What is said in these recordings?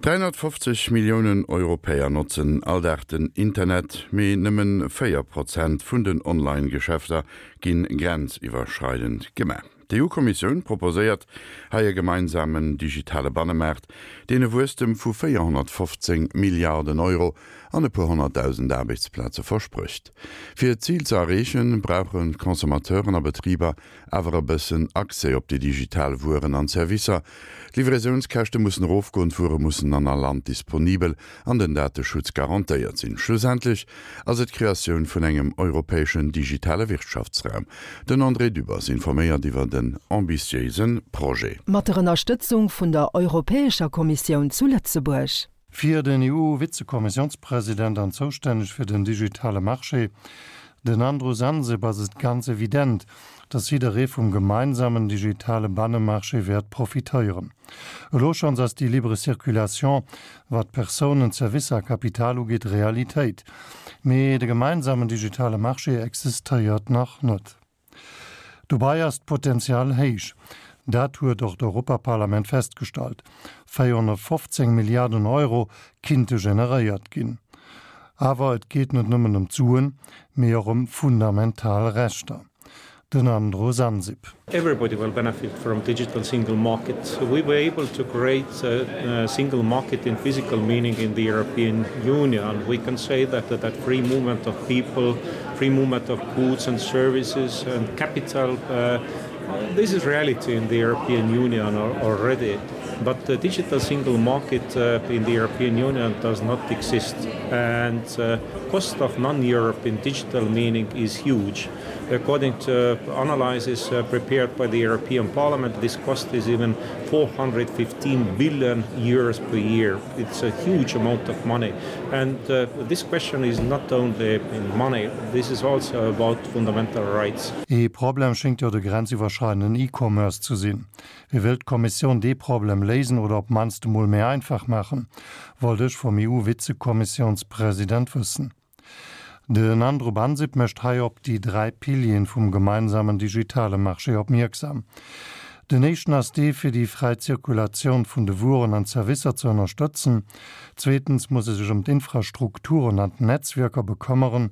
350 Milliounen Europäer notzen all Dag den Internet, mee nëmmen 4 Prozent vun den Online-Geschäfter ginn grenziwwerschreidend gemaach. D'EU-Kommissioun proposéiert hei e gemeinsamen digitale Bannemaart, deen e Wuesstem vu 415 Milliarden Euro an e puer honnertdausend Aarbechtsplaze versprécht. Fir d'Zil ze erreechen, brauche Consommateuren a Betriber awer e bëssen Accès op déi digital Wueren an Servicer. D'Livraisiounskäschte mussen erofgoen, d'Wuere mussen an all Land disponibel an den Dateschutz garantéiert sinn. Schlussendlech ass et d'Kreatioun vun engem europäeschen digitale Wirtschaftsraum. Den André Dübbers informéiert iwwer en ambitiéise Projet. Mat der Ënnerstëtzung vun der Europäescher Kommissioun zu Lëtzebuerg. Fir den EU-Vizekommissiounspresident an zoustänneg fir den digitale Marché, den Andrus Ansip, ass et ganz evident, datt jidderee vum gemeinsamen digitale Bannemarché wäert profitéieren. Elo schonns ass déi libre Circulation, wat Persounen, Servicer a Kapital ugeet, Realitéit. Mee de gemeinsamen digitale Marché existéiert nach net. Dobei ass d'Potenzial héich. Dat huet och d'Europaparlament festgestallt. 415 Milliarden Euro kinnte generéiert ginn. Awer et geet net nëmmen ëm d'Suen, mee och ëm fundamental Rechter. Den Andrus Ansip. Everybody will benefit from digital single market. We were able to create a single market in physical meaning in the European Union. We can say that that free movement of people, free movement of goods and services and capital uh, this is reality in the European Union already. But the digital single market uh, in the European Union does not exist and uh, cost of non-Europe in digital meaning is huge. According to analyses uh, prepared by the European Parliament, this cost is even 415 billion euros per year. It's a huge amount of money. And uh, this question is not only in money, this is also about fundamental rights. Ee Problem schéngt jo de grenziwwerschreidenden E-Commerce ze sinn. Wéi wëllt d'Kommissioun dee Problem léisen oder op d'mannst emol méi einfach maachen, wollt ech vum EU-Vizekommissiounspresident wëssen. Den Andrub Ansip mécht hei op déi 3 Pilieren vum gemeinsamen digitale Marché opmierksam. Den éischten ass dee fir déi fräi Zirkulatioun vun de Wueren an Zerwisser ze ënnerstëtzen. Zweetens muss e sech ëm d'Infrastrukturen an d'Netzwierker bekëmmeren.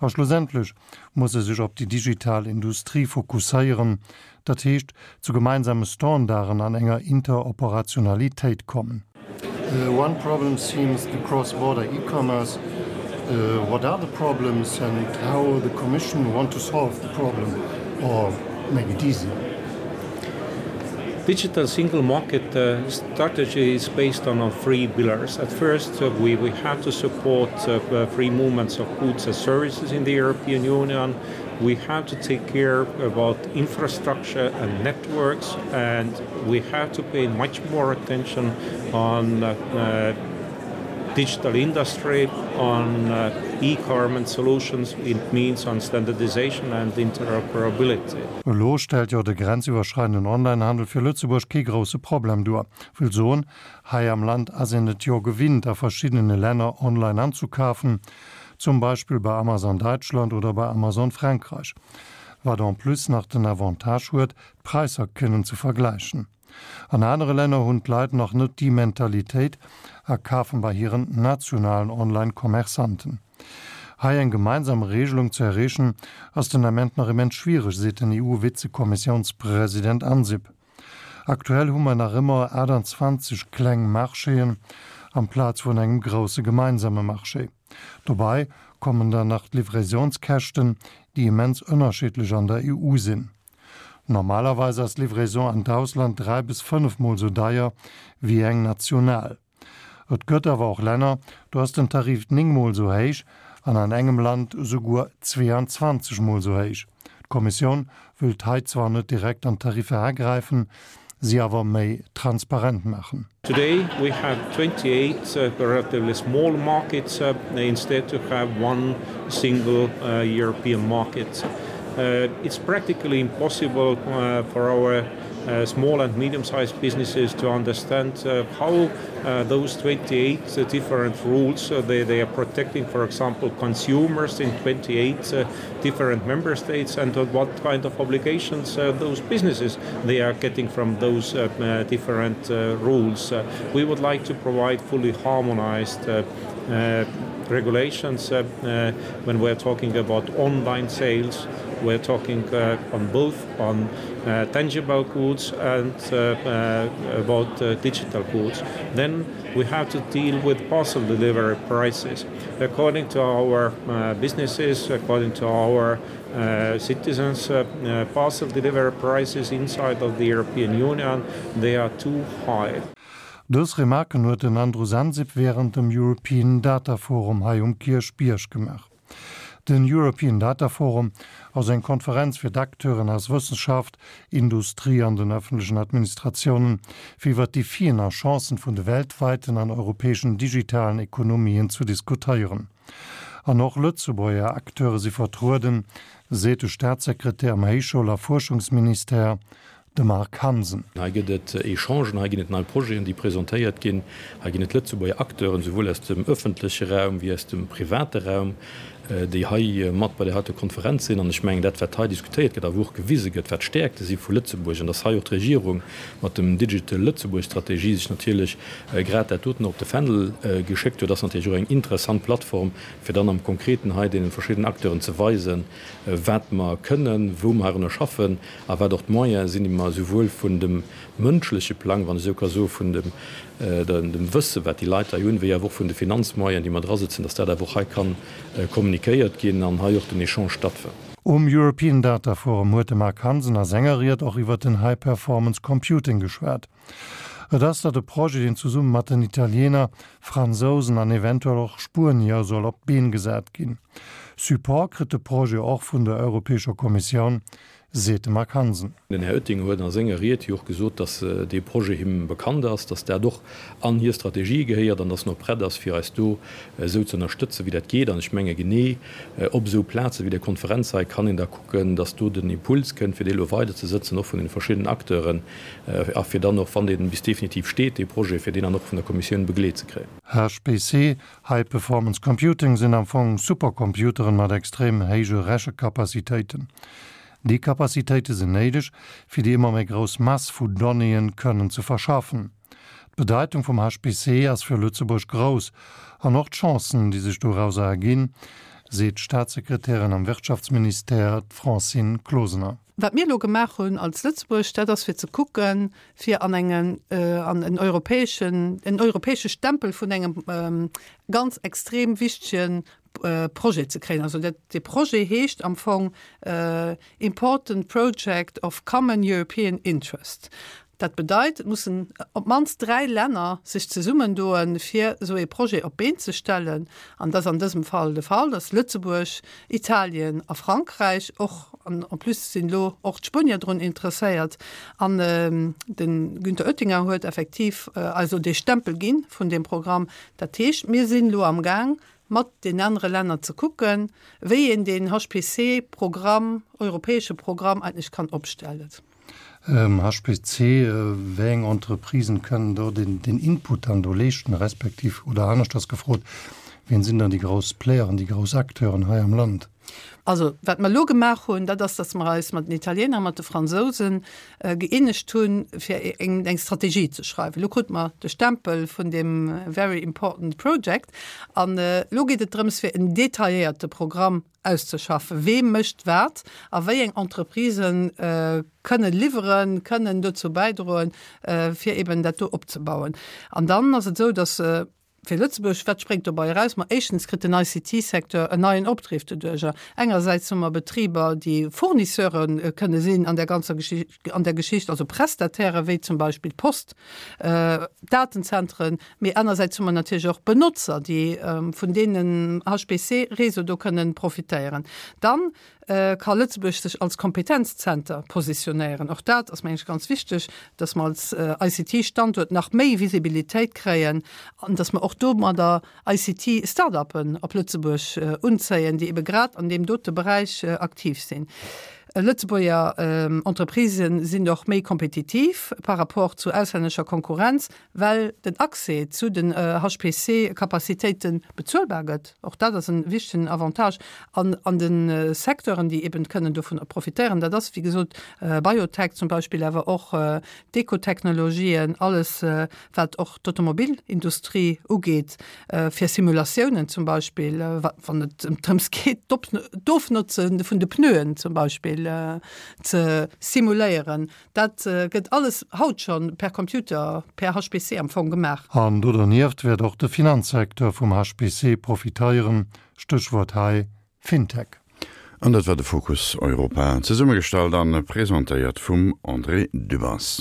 A schlussendlech muss e sech op déi digital Industrie fokusséieren, dat heescht zu gemeinsame Standarden an enger Interoperationalitéit kommen. One problem seems the cross-border e-commerce. What are the problems and how the Commission want to solve the problem or make it easier? Digital single market uh, strategy is based on our three pillars. At first, uh, we, we have to support uh, uh, free movements of goods and services in the European Union. We have to take care about infrastructure and networks, and we have to pay much more attention on uh, uh, digital industry, on uh, e-carbon solutions, it means on standardization and interoperability. Elo stellt jo de grenziwwerschreidenden Onlinehandel fir Lëtzebuerg kee grousse Problem duer. Wëll soen, hei am Land ass een et jo gewinnt a verschiddene Länner online anzukafen, zum Beispill bei Amazon Däitschland oder bei Amazon Frankräich, wat en plus nach den Avantage huet, d'Präisser kënnen ze vergläichen. An anere Länner hunn d'Leit nach net déi Mentalitéit a kafen bei hiren nationalen Online-Commerçanten. Hei eng gemeinsam Regelung ze erreechen, ass den Ament nach immens schwiereg, seet den EU-Vizekommissiounspresident Ansip. Aktuell hu mer nach ëmmer 28 kleng Marchéen amplaz vun engem grousse gemeinsame Marché. Dobei kommen dann nach d'Livraisionskäschten, déi immens ënnerschiddlech an der EU sinn. Normalerweis ass d'Livraison an d'Ausland 3 bis 5 mol sou deier wéi eng national. Et gëtt awer och Länner, do ass den Tarif 9 mol sou héich an an engem Land esouguer 22 mol sou héich. D'Kommissioun wëllt hei zwar net direkt an d'Tariffer agräifen, si awer méi transparent maachen. Today we have 28 uh, relatively small markets uh, instead to have one single uh, European market. Uh, it's practically impossible uh, for our. small and medium-sized businesses to understand how those 28 different rules they, they are protecting, for example, consumers in 28 different member states and what kind of obligations those businesses they are getting from those different rules. We would like to provide fully harmonized regulations when we're talking about online sales, we're talking on both on tangible goods and about digital goods. Then we have to deal with parcel delivery prices. According to our businesses, according to our citizens, parcel delivery prices inside of the European Union, they are too high. Dës Remarken huet den Andrus Ansip wärend dem European Data Forum hei um Kierchbierg gemaach. Den European Data Forum ass eng Konferenz fir d'Acteuren aus Wëssenschaft, Industrie an den ëffentlechen Administratiounen, fir iwwer d'Defien a Chancen vun de weltweiten an europäeschen digitalen Ekonomien zu diskutéieren. An och Lëtzebuerger Acteure si vertrueden, seet de Staatssekretär am Héichschoul a Fuerschungsministère, De Marc Hansen. Hei gëtt et Echangen, hei ginn et nei Projeten, déi presentéiert ginn. Hei ginn et Lëtzebuerger Acteuren, souwuel aus dem ëffentleche Raum wéi aus dem private Raum, déi hei mat bei där heiter Konferenz sinn. An ech mengen, dat, wat hei diskutéiert gëtt a wou och gewise gëtt, wat d'Stäerkte si vu Lëtzebuerg, an dass hei och d'Regierung mat dem Digital Lëtzebuerg Strategie sech natierlech grad dat doten op de Fändel geschéckt huet, ass natierlech och eng interessant Plattform, fir dann am Konkreten hei deene verschiddenen Acteuren ze weisen, wat mer kënnen, wou mer heirunner schaffen a wat och d'Moyene sinn, déi mer esouwuel vun dem mënschleche Plang, wann ech esou ka soen, vun dem dem Wësse wat déi Leit hei hunn, wéi awer och vun de Finanzmoyenen, déi mer drasëtzen, dass dat awer och hei ka kommunikéiert ginn an hei och den Echange stattfënnt. Um European Data Forum huet de Marc Hansen a senger Ried och iwwer den High Performance Computing geschwat. Et ass dat e Projet, deen zesumme mat den Italiener, Fransousen an eventuell och Spuenier soll op d'Been gesat ginn. Support kritt de Projet och vun der Europäescher Kommissioun, seet de Marc Hansen. Den Här Oettinger huet a senger Ried jo och gesot, dass dee Projet him bekannt ass, dass dat och an hir Strategie gehéiert an dass en och prett ass, fir eis do esou ze ënnerstëtzen, wéi dat geet. An ech menge genee op esou Plaze wéi där Konferenz hei kann een da kucken, dass do den Impuls kënnt, fir dee elo weiderzesëtzen, och vun deene verschiddenen Acteuren, a fir dann och, wann dee bis definitiv steet, dee Projet, fir deen dann och vun der Kommissioun begleet ze kréien. HPC, High Performance Computing, sinn am Fong Supercomputeren mat extrem héije Rechekapazitéiten. Déi Kapazitéite sinn néideg, fir déi ëmmer méi grouss Mass vu Donnéeën kënnen ze verschaffen. D'Bedeitung vum HPC ass fir Lëtzebuerg grouss an och d'Chancen, déi sech dorauser erginn, seet d'Staatssekretärin am Wirtschaftsministère, d'Francine Closener. Wat mir elo gemaach hunn als Lëtzebuerg, dat ass fir ze kucken, fir an engen, an en europäeschen, en europäesche Stempel vun engem ganz extrem wichtege Projet ze kréien. Also dat, dee Projet heescht am Fong Important Project of Common European Interest. Dat bedeit, et mussen op d'mannst 3 Länner sech zesummendoen, fir esou ee Projet op d'Been ze stellen. An dat ass an dësem Fall de Fall, dass Lëtzebuerg, Italien a Frankräich och, an en plus sinn elo och d'Spuenier drun interesséiert, an de Günther Oettinger huet effektiv eis elo dee Stempel gi vun deem Programm. Dat heescht, mir sinn elo amgaang, mat den anere Länner ze kucken, wéi een deen HPC-Programm, europäesche Programm eigentlech kann opstellen. HPC, Wéi eng Entreprisen kënnen do den Input dann do leeschten, respektiv, oder aneschters gefrot, wien sinn dann déi grouss Playeren, déi grouss Acteuren hei am Land? Also, wat mer elo gemaach hunn, dat ass, datt mer eis mat den Italiener a mat de Fransousen gëeenegt hunn, fir eng Strategie ze schreiwen. Elo krute mer de Stempel vun deem very important project an elo geet et drëms, fir en detailléierte Programm auszeschaffen, wee mécht wat a wéi eng Entreprisen kënnen liwweren, kënnen dozou bäidroen, fir eben dat do opzebauen. An dann ass et esou, datt fir Lëtzebuerg, wat spréngt dobei eraus? Ma éischtens kritt den ICT-Secteur en neien Opdriff doduerjer. Engersäits hu mer Betriber, déi Fournisseure kënne sinn an där ganzer Geschicht, an där Geschicht, also Prestataire wéi zum Beispill d'Post, Datenzentren, mee anersäits hu mer natierlech och Benotzer, déi vun deenen HPC-Réseau do kënnen profitéieren. Dann ka Lëtzebuerg sech als Kompetenzzenter positionéieren. Och dat ass, mengen ech, ganz wichteg, dass mer als ICT-Standuert nach méi Visibilitéit kréien an dass mer och domadder ICT-Start-uppen op Lëtzebuerg unzéien, déi ebe grad an deem dote Beräich aktiv sinn. Lëtzebuerger Entreprisë sinn och méi kompetitiv par rapport zu auslännescher Konkurrenz, well den Accès zu den HPC-Capacitéite bezuelbar gëtt. Och dat ass e wichtegen Avantage. An an de Secteuren, déi eben kënnen dovun profitéieren, dat ass wéi gesot Biotech zum Beispill, awer och d'Ekotechnologien, alles wat och d'Automobilindustrie ugeet, fir Simulatiounen zum Beispill, wann et drëms geet, d'Ofnotze vun de Pneuen zum Beispill ze simuléieren. Dat gëtt alles haut scho per Computer, per HPC am Fong gemaach. An do dernieft wäert och de Finanzsecteur vum HPC profiteieren, Stéchwuert hei Fintech. An dat war de Fokus Europa, zesummegestallt an presentéiert vum André Dübbers.